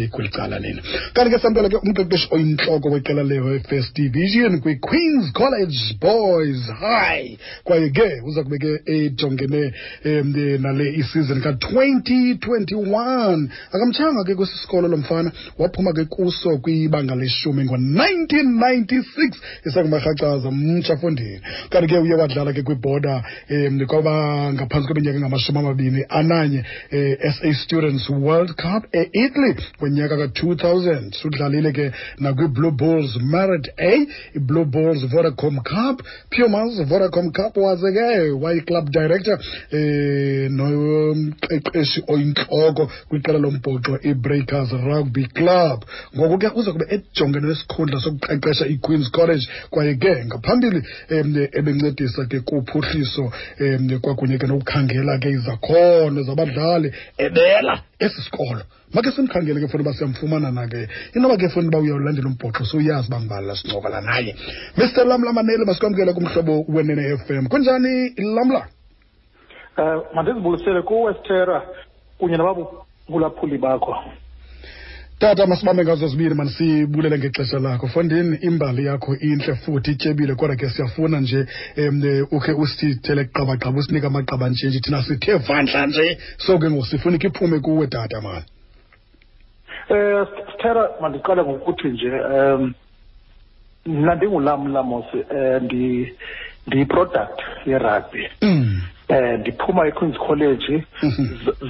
Kweli cala lena. Kanti ke samkela ke umqeqeshi oyintloko weqela le-First Division kwi-Queens College Boys High, kwaye ke uza kube ke ejongene nale isizini ka-2021. Akamtshanga ke kwesi sikolo lo mfana, waphuma ke kuso kwibanga leshumi ngo-1996, isangumarhacaza mtsha fondini. Kanti ke uye wadlala ke kwiborder kwaba ngaphantsi kweminyaka engama-21, SA Students World Cup e-Italy ngonyaka ka-2000. Udlalile ke nakwi-Blue Bulls Merit A, i-Blue Bulls Vodacom Cup, Pumas Vodacom Cup, waze ke wayi-club director nomqeqeshi oyintloko kwiqela lombhoxo i-Breakers Rugby Club. Ngoku ke uza kube ejongene nesikhundla sokuqeqesha i-Queens College, kwaye ke ngaphambili ebencedisa ke kuphuhliso kwakunye ke nokukhangela ke izakhono zabadlali ebela esi sikolo. Make simkhangele ke funa uba siyamfumana na ke, inoba ke funa uba uyawulandela umbhoxo sowuyazi uba ngubani la sincokola naye. Mr Lamla Maneli, masikwamkele kumhlobo Wenene FM. Kunjani, Lamla? Mandizibulisele kuwe, Sithera, kunye nabaphulaphuli bakho. Tata, masibambe ngazo zibini, manisibulele ngexesha lakho. Fondini, imbali yakho intle futhi ityebile, kodwa ke siyafuna nje ukhe usithele qabaqaba, usinike amaqaba nje nje, thina sithe vandla nje, so ke ngoku sifuna ikhe iphume kuwe, tata mani. Sithera, mandiqale ngokuthi nje mna ndinguLamla mos, ndiyi-product ye-rugby. Ndiphuma eQueens College,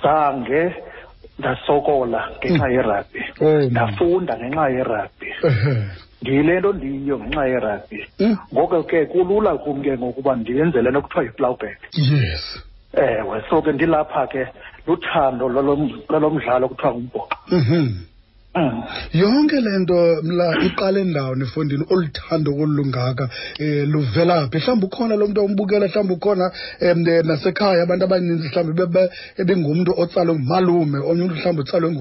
zange ndasokola ngenxa ye-rugby. Ndafunda ngenxa ye-rugby. Ndiyile nto ndiyiyo ngenxa ye-rugby. Ngoko ke kulula kum ke ngokuba ndiyenze le nto kuthiwa yi-plowback. Ewe, so ke ndilapha ke luthando lalo mdlalo kuthiwa ngumbhoxo. Yonke le nto mla iqale ndawo efondini, oluthando olungaka luvela phi? Mhlawumbi ukhona lo mntu ombukela, mhlawumbi ukhona nasekhaya abantu abaninzi, mhlawumbi ebengumntu otsalwe ngumalume, omnye umntu mhlawumbi utsalwe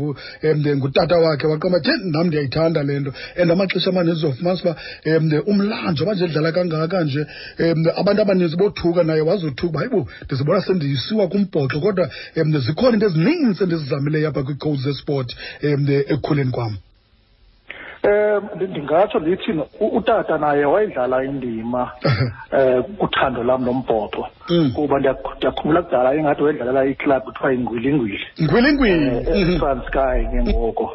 ngutata wakhe, waqonda uba nam ndiyayithanda le nto. And amaxesha amaninzi uzofumanisa uba umlando nje edlala kangaka nje, abantu abaninzi bothuka naye wazothuka uba hayibo, ndizibona sendisiwa kumbhoxo, kodwa zikhona into ezininzi endizizamileyo apha kwii-codes zesport ekukhuleni kwam. Ndingatsho ndithi utata naye wayidlala indima kuthando lam lombhoxo, kuba ndiyakhumbula kudala ingathi wayedlalela iklabhu kuthiwa yingwilingwili. Ngwilingwili. eTranskei ke ngoko.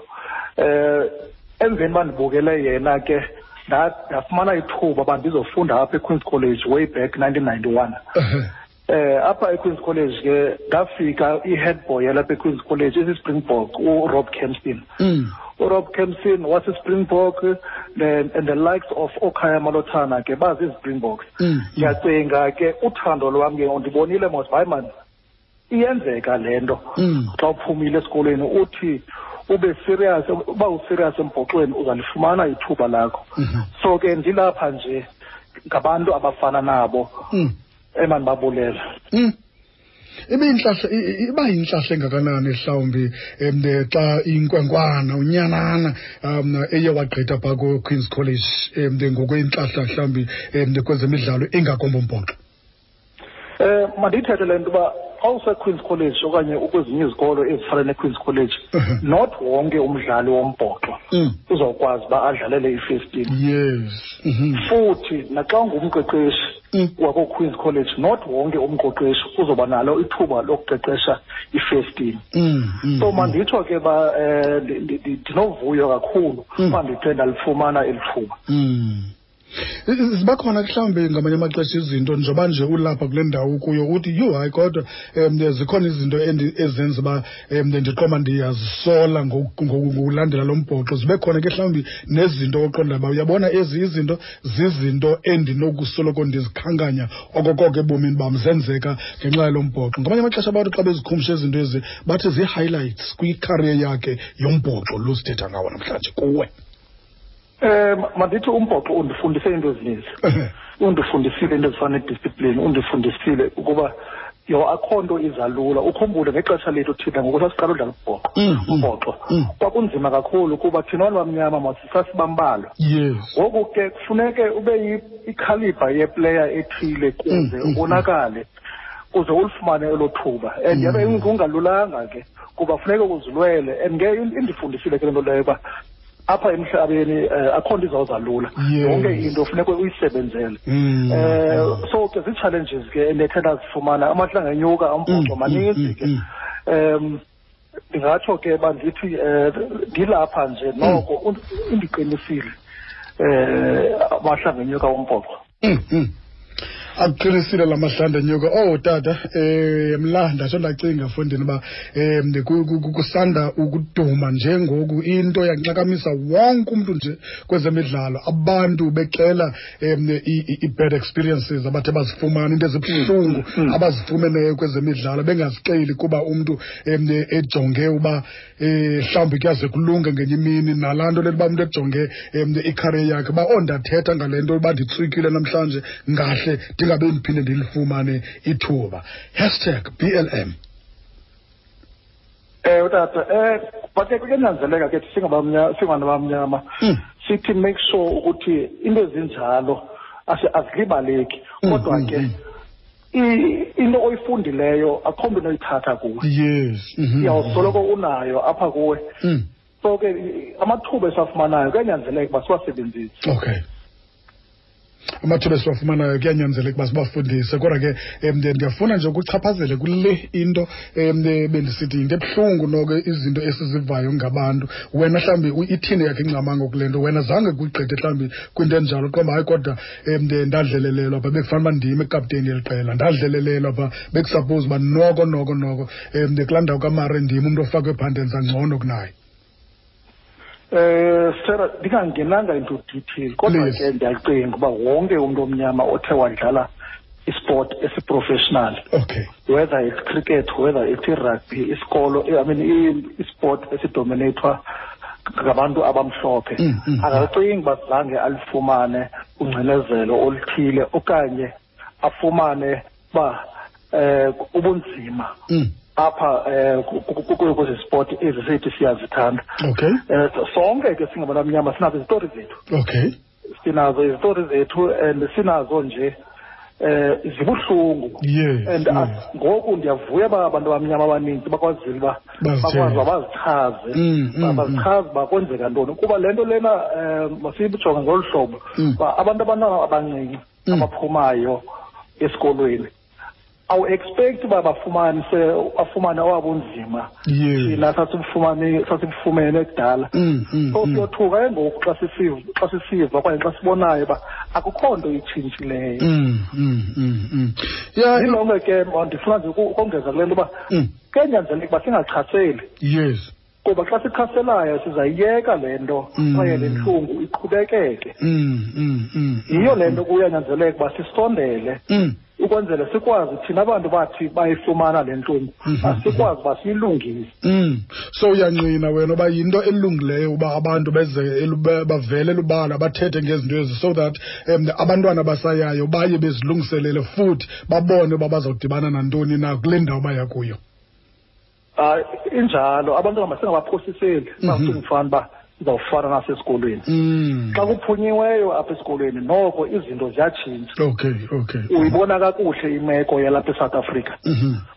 Emveni uba ndibukele yena ke ndafumana ithuba uba ndizofunda apha eQueens College way back 1991. Apha eQueens College ke ndafika i-head boy yalapha eQueens College isi-Springbok, uRob Kempson. URob Kempson wasi-Springbok and the likes of oKhaya Malotana ke bazi-Springboks. Ndiyacinga ke uthando lwam ke ndibonile mos, hayi man, iyenzeka le nto. Xa uphumile esikolweni uthi ube serious, uba userious embhoxweni uzalifumana ithuba lakho. So ke ndilapha nje ngabantu abafana nabo emandibabulela. Ibe iba yintlahla engakanani mhlawumbi xa inkwenkwana unyanana eye wagqitha phaa ku-Queens College ngokwentlahla mhlawumbi kwezemidlalo ingakumbi umbhoxo? Mandiyithethe le nto uba xa useQueens College okanye ukwezinye izikolo ezifana neQueens College, not wonke umdlali wombhoxo uzawukwazi uba adlalele i-first team. Futhi naxa ungumqeqeshi wakoQueens College, not wonke umqeqeshi uzoba nalo ithuba lokuqeqesha i-first team. So manditsho ke ba ndinovuyo kakhulu uba ndithe ndalifumana eli thuba. Ziba khona mhlawumbi ngamanye amaxesha izinto njengoba nje ulapha kule ndawo kuyo uthi yho hayi, kodwa zikhona izinto ezenza uba ndiqonda ndiyazisola ngokulandela lo mbhoxo. Zibe khona ke mhlawumbi nezinto oqonda uba uyabona ezi izinto zizinto endinokusoloko ndizikhankanya okokoko ebomini bam, zenzeka ngenxa yalo mbhoxo. Ngamanye amaxesha abantu xa bezikhumsha izinto ezi bathi zii-highlights kwikhariye yakhe yombhoxo lo sithetha ngawo namhlanje kuwe. Mandithi umbhoxo undifundise into ezininzi. Undifundisile into ezifana nediscipline, undifundisile ukuba yo akho nto izalula. Ukhumbule ngexesha lethu thina ngoku sasiqala udlala umbhoxo, umbhoxo kwakunzima kakhulu kuba thina bantu bamnyama sasibambalwa. Ngoku ke kufuneke ube ikhalibha yeplayer ethile kuze ubonakale. Uze ulifumane elo thuba, and yabe kungalulanga ke kuba funeke uzilwele. And ke indifundisile ke le nto leyo uba apha emhlabeni akho nto izawuza lula. Yonke into funeka uyisebenzele. So ke zii-challenges ke endithe ndazifumana, amahlanga enyuka umbhoxo maninzi ke. Ndingatsho ke uba ndithi ndilapha nje noko indiqinisile amahlanga enyuka umbhoxo. Akuqinisile la mahlanda nyuka. Oh tata, mla ndatsho ndacinga fondini uba kusanda ukuduma njengoku into yanxakamisa wonke umntu nje kwezemidlalo, abantu bexela i-bad experiences abathe bazifumana, into ezibuhlungu abazifumeneyo kwezemidlalo bengazixeli kuba umntu ejonge uba mhlawumbi kuyaze kulunge ngenye imini. Nalaa nto lento uba umntu ejonge icareer yakhe uba oh ndathetha ngale nto uba nditswikile namhlanje ngahle ndingabe ndiphinde ndilifumane ithuba. #BLM. Ewe tata, but ke kuyanyanzeleka ke singabantu abamnyama sithi make sure ukuthi into ezinjalo azilibaleki, kodwa ke into oyifundileyo akho mntu onoyithatha kuwe. Uyawusoloko unayo apha kuwe. So ke amathuba esiwafumanayo kuyanyanzeleka uba siwasebenzise. Okay. Amathuba esiwafumanayo kuyanyanzeleka uba sibafundise. Kodwa ke ndiyafuna nje ukuchaphazele kule into bendisithi yinto ebuhlungu noko izinto esizivayo ngabantu. Wena mhlawumbi ithini yakhe ingcamango kule nto? Wena zange kuyigqithe mhlawumbi kwinto enjalo, qomba hayi kodwa ndadlelelelwa pha, bekufanele uba ndim ekapteni yeli qela, ndadlelelelwa pha, bekusuppose uba noko noko noko kulaa ndawo kaMare ndim umntu ofakwe phaa, ndenza ngcono kunaye. Sarah, ndingangenanga into detail, kodwa ke ndiyacinga uba wonke umntu omnyama othe wadlala isport esiprofessional, okay, whether it's cricket, whether it's rugby, isikolo, I mean isport esidominathwa ngabantu abamhlophe, akacingi uba zange alifumane ungcinezelo oluthile okanye afumane uba ubunzima apha kwezi sport ezi sithi siyazithanda. Okay. Sonke ke singabantu abamnyama sinazo izitori zethu. Okay. Sinazo izitori zethu and sinazo nje zibuhlungu. Yes. And ngoku ndiyavuya uba abantu abamnyama abaninzi bakwazile uba bakwazi bazichaze, bazichaze uba kwenzeka ntoni. Kuba le nto lena masiyijonge ngolu hlobo uba abantu abantwana abancinci abaphumayo esikolweni awu-expect uba bafumane owabunzima thina sasibufumene kudala. So siyothuka ke ngoku xa sisiva okanye xa sibonayo uba akukho nto itshintshileyo. Yilonke ke ndifuna nje ukongeza kule nto uba kuyanyanzeleka uba singachaseli. Yes. Kuba xa sichaselayo sizayiyeka le nto kwaye le ntlungu iqhubekeke. Yiyo le nto kuyanyanzeleka uba sisondele ukwenzela sikwazi thina abantu bathi bayifumana le ntlungu, asikwazi uba siyilungise. So uyangqina wena uba yinto elungileyo uba abantu beze bavele elubala bathethe ngezinto ezi, so that abantwana abasayayo baye bezilungiselele futhi babone uba bazawudibana nantoni na kule ndawo baya kuyo. Injalo, abantwana masingabaphosiseli, singafani uba sizawufana nasesikolweni. Xa kuphunyiweyo apha esikolweni noko izinto ziyatshintsha. Okay, okay. Uyibona kakuhle imeko yalapha eSouth Africa.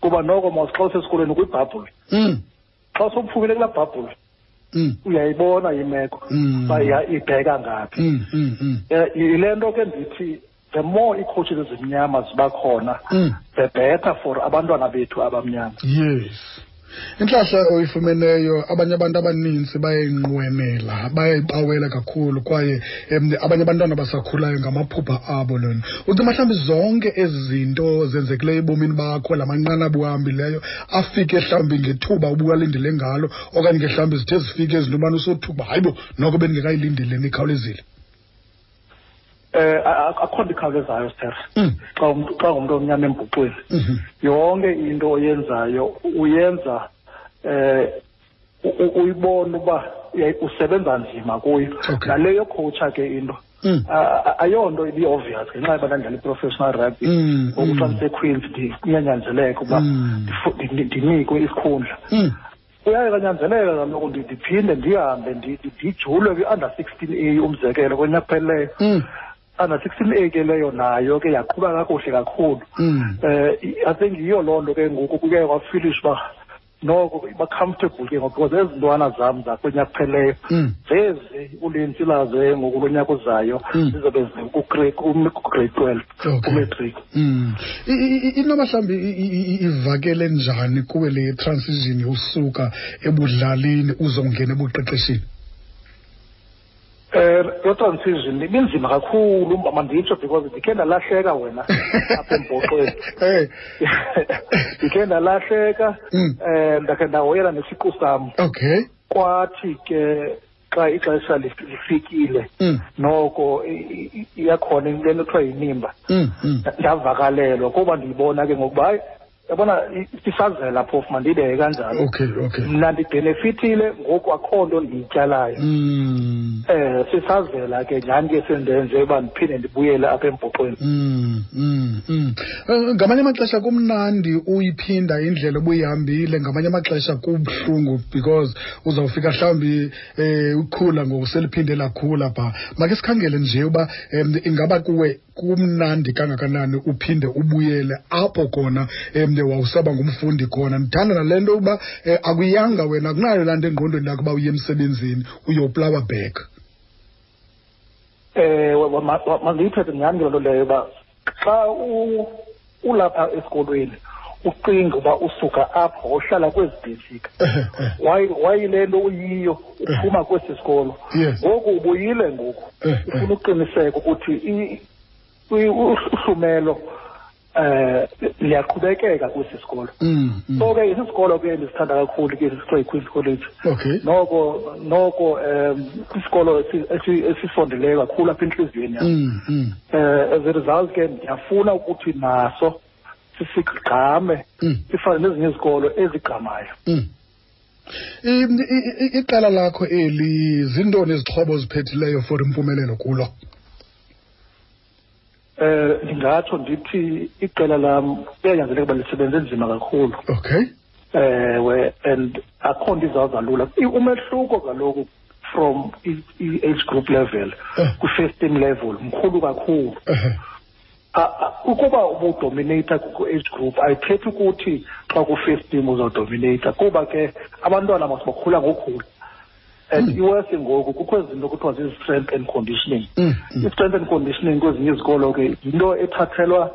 Kuba noko mos xa usesikolweni kwibhabhuli. Xa sowuphumile kulaa bhabhuli, uyayibona imeko uba ibheka ngaphi. Yile nto ke ndithi the more ii-coaches ezimnyama ziba khona, the better for abantwana bethu abamnyama. Yes. Intlahla oyifumeneyo abanye abantu abaninzi bayayinqwenela, bayayibawela kakhulu, kwaye abanye abantwana basakhulayo ngamaphupha abo lona. Uthi mhlawumbi zonke ezi zinto zenzekileyo ebomini bakho, la manqanaba uhambileyo afike mhlawumbi ngethuba ubuwalindele ngalo, okanye ke mhlawumbi zithe zifike izinto ubana usothuba, hayibo noko bendingekayilindeli ikhawulezile. Akho nto ikhawulezayo, Sir. Xa ungumntu omnyama embhuxweni, yonke into oyenzayo uyenza uyibona uba usebenza nzima kuyo. Nale yocoacha ke into ayonto ibi-obvious ngenxa yoba ndandidlala i-professional rugby. Ngoku xa ndiseQueens kuyanyanzeleka uba ndinikwe isikhundla. Kuyaye kanyanzeleka kaloku ndiphinde ndihambe ndijulwe kwi-under 16 A umzekelo konyaka ophelileyo. Under 16 A ke leyo nayo ke yaqhuba kakuhle kakhulu. I think yiyo loo nto ke ngoku kuke kwafilisha uba noko ba-comfortable ke ngoku, because ezi ntwana zam zakunyaka kupheleyo zezi ulinzi lazo ngoku lo nyaka uzayo zizobe zikugrade 12 kumatric. Inoba mhlawumbi ivakele njani kuwe le transition usuka ebudlalini uzongena ebuqeqeshini? Lo transition ibinzima kakhulu, manditsho, because ndikhe ndalahleka wena apha embhoxweni. Ndikhe ndalahleka, ndakhe ndahoyela nesiqu sam. Kwathi ke xa ixesha lifikile, noko iyakhona into ekuthiwa yinimba. Ndavakalelwa kuba ndiyibona ke ngokuba hayi, yabona, isazela phofu, mandiyibeke kanjalo. Okay. Mna ndibhenefithile ngoku, akho nto ndiyityalayo. Sisazela ke nyhani ke sendenze uba ndiphinde ndibuyele apha embhoxweni. Ngamanye amaxesha kumnandi uyiphinda indlela obuyihambile, ngamanye amaxesha kubuhlungu because uzawufika mhlawumbi ukhula ngoku seliphinde lakhula pha. Make sikhangele nje uba ingaba kuwe kumnandi kangakanani uphinde ubuyele apho khona wawusaba ngumfundi khona. Ndithanda nale nto uba akuyanga wena, akunayo laa nto engqondweni yakho uba uye emsebenzini uyoplawa back. Mandiyithethe nyhani ke loo nto leyo, uba xa ulapha esikolweni ucinga uba usuka apho uhlala kwezi bhesika, wayile nto uyiyo uphuma kwesi sikolo, ngoku ubuyile ngoku ufuna uqiniseka ukuthi uhlumelo liyaqhubekeka kwesi sikolo. So ke isisikolo ke ndisithanda kakhulu ke sisithiwa yiQueen's College. Noko isikolo esisondeleyo kakhulu apha entliziyweni yam. As a result ke ndiyafuna ukuthi naso sisigqame, sifane nezinye izikolo ezigqamayo. Iqela lakho eli, zintoni izixhobo oziphethileyo for impumelelo kulo? Ndingatsho ndithi iqela lam kuyanyanzeleka uba lisebenze nzima kakhulu. Ewe, and akho nto izawuza lula. Umehluko kaloku from i-age group level kwi-first team level mkhulu kakhulu. Ukuba ubudominata ku-age group ayithethi ukuthi xa ku-first team uzawudominata, kuba ke abantwana masibakhula ngokhula. And iwesi ngoku kukho izinto kuthiwa zii-strength and conditioning. I-strength and conditioning kwezinye izikolo ke yinto ethathelwa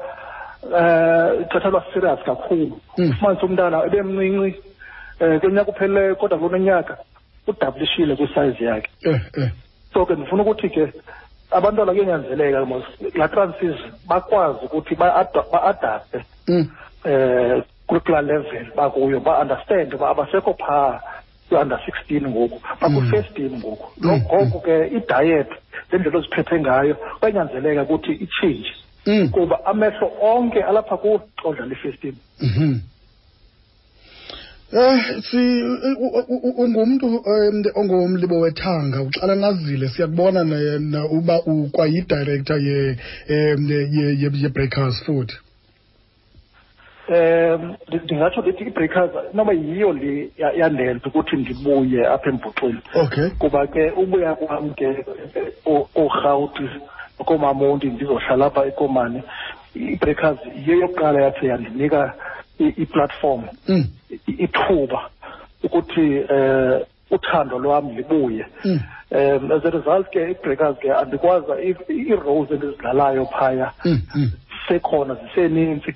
ithathelwa serious kakhulu. Ufumanise umntana ebemncinci kunyaka uphelileyo, kodwa kulo nyaka udabulishile kwisize yakhe. So ke ndifuna ukuthi ke abantwana kuyanyanzeleka laa transition bakwazi ukuthi ba-adapte kulaa level bakuyo, ba-understand uba abasekho phaa kwi-under 16 ngoku, bakwi-first team ngoku. Ngoku ke i-diet, le ndlela oziphethe ngayo, kuyanyanzeleka ukuthi itshintshe, kuba amehlo onke alapha kuwe xa udlala i-first team. Si ungumntu ongumlibo wethanga, uxalanazile, siyakubona uba ukwayi-director ye-Breakers futhi. Ndingatsho ndithi i-Breakers noba yiyo le yandenza ukuthi ndibuye apha embhoxweni. Kuba ke ubuya kwam ke koRhawuti kooMamonti ndizohlala apha eKomani, i-Breakers yiyo yokuqala yathi yandinika i-platform, ithuba ukuthi uthando lwam libuye. As a result ke i-Breakers ke andikwazi ii-roles endizidlalayo phaya sekhona ziseninzi,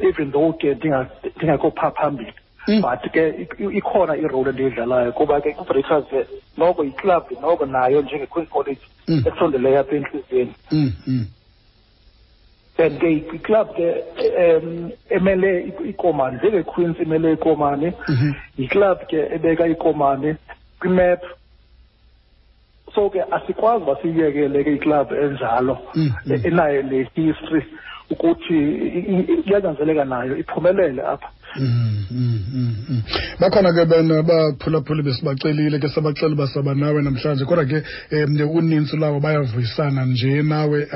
even though ke ndingekho phaa phambili, but ke ikhona irole endiyidlalayo, kuba ke i-Breakers ke noko yiklabhu noko nayo njenge-Queen's College esondeleyo apha entliziyweni. And ke iklabhu ke emele iKomani, njenge-Queens imele iKomani, yiklabhu ke ebeka iKomani kwimap. So ke asikwazi uba siyiyekele ke iklabhu enjalo enayo le history. Ukuthi iyanyanzeleka nayo iphumelele apha. Bakhona ke bena baphulaphuli besibacelile ke, sabacela uba saba nawe namhlanje, kodwa ke unintsi lwabo bayavuyisana nje nawe.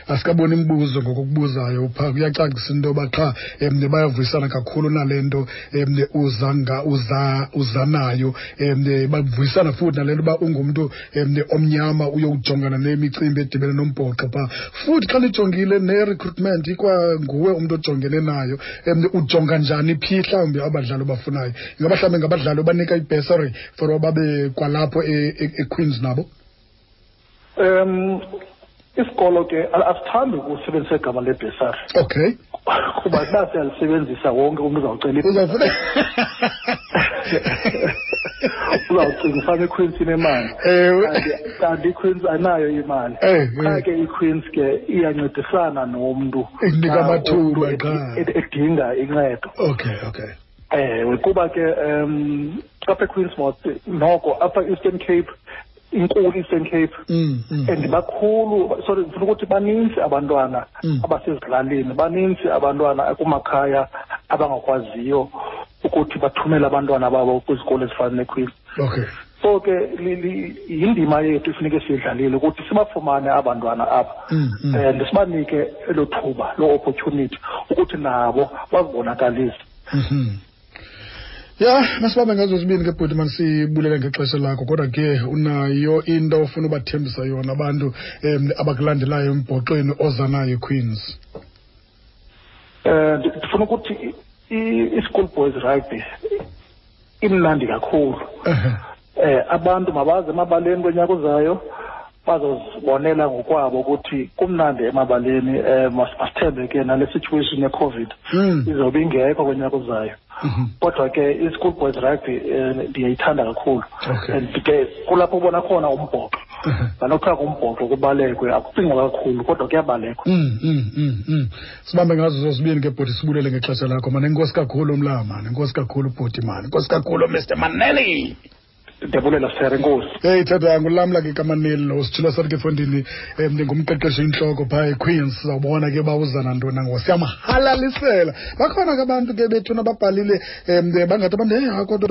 Asikaboni imibuzo ngokokubuzayo phaa, kuyacacisa into yoba qha bayavuyisana kakhulu nale nto uza nayo. Bavuyisana futhi nale nto uba ungumntu omnyama uyowujongana nemicimbi edibene nombhoxo phaa. Futhi xa nijongile ne-recruitment, ikwanguwe umntu ojongene nayo. Ujonga njani phi mhlawumbi abadlali obafunayo? Ingaba mhlawumbi ngabadlali obanika i-bursary for uba babe kwalapho eQueens nabo? Isikolo ke asithandi ukusebenzisa igama lebhesari. Kuba uba siyalisebenzisa wonke umntu uzawucela, uzawucinga ufana iQueens inemali. Kanti iQueens ayinayo imali. Qha ke iQueens ke iyancedisana nomntu Ikunika amathuba qha edinga incedo. okay. Ewe, kuba ke apha eQueens mos noko apha Eastern Cape, inkulu Eastern Cape, and bakhulu, sorry, ndifuna ukuthi baninzi abantwana abasezilalini, baninzi abantwana kumakhaya abangakwaziyo ukuthi bathumele abantwana babo kwizikolo ezifana neQueens. So ke yindima yethu ifuneke siyidlalile ukuthi sibafumane abantwana apha and sibanike elo thuba, loo opportunity ukuthi nabo bazibonakalise. Ya, masibambe ngazo zibini ke bhuti, masibulele ngexesha lakho, kodwa ke unayo into ofuna ubathembisa yona abantu abakulandelayo embhoxweni oza nayo eQueens? Ndifuna ukuthi i-school boys rugby imnandi kakhulu. Abantu mabaze emabaleni konyaka ozayo, bazozibonela ngokwabo ukuthi kumnandi emabaleni. Masithembe ke nale situation ye-COVID izobe ingekho konyaka ozayo. Kodwa ke i-school boys rugby ndiyayithanda kakhulu. And ke kulapho ubona khona umbhoxo. Nalokho kumbhoxo kubalekwe, akucingwa kakhulu kodwa kuyabalekwa. Sibambe ngazo zozibini ke bhuti, sibulele ngexesha lakho mani. Enkosi kakhulu mlama, enkosi kakhulu bhuti mani, enkosi kakhulu Mr Maneli. Ndiyabulela sir, enkosi. Hey tata, nguLamla ke kaManeli lo, sithula sathi ke fondini, ndingumqeqeshi intloko phaa eQueens. Sizawubona ke uba uza nantoni nangoku, siyamhalalisela. Bakhona ke abantu ke bethuna ababhalile, bangathi abantu, hey, kodwa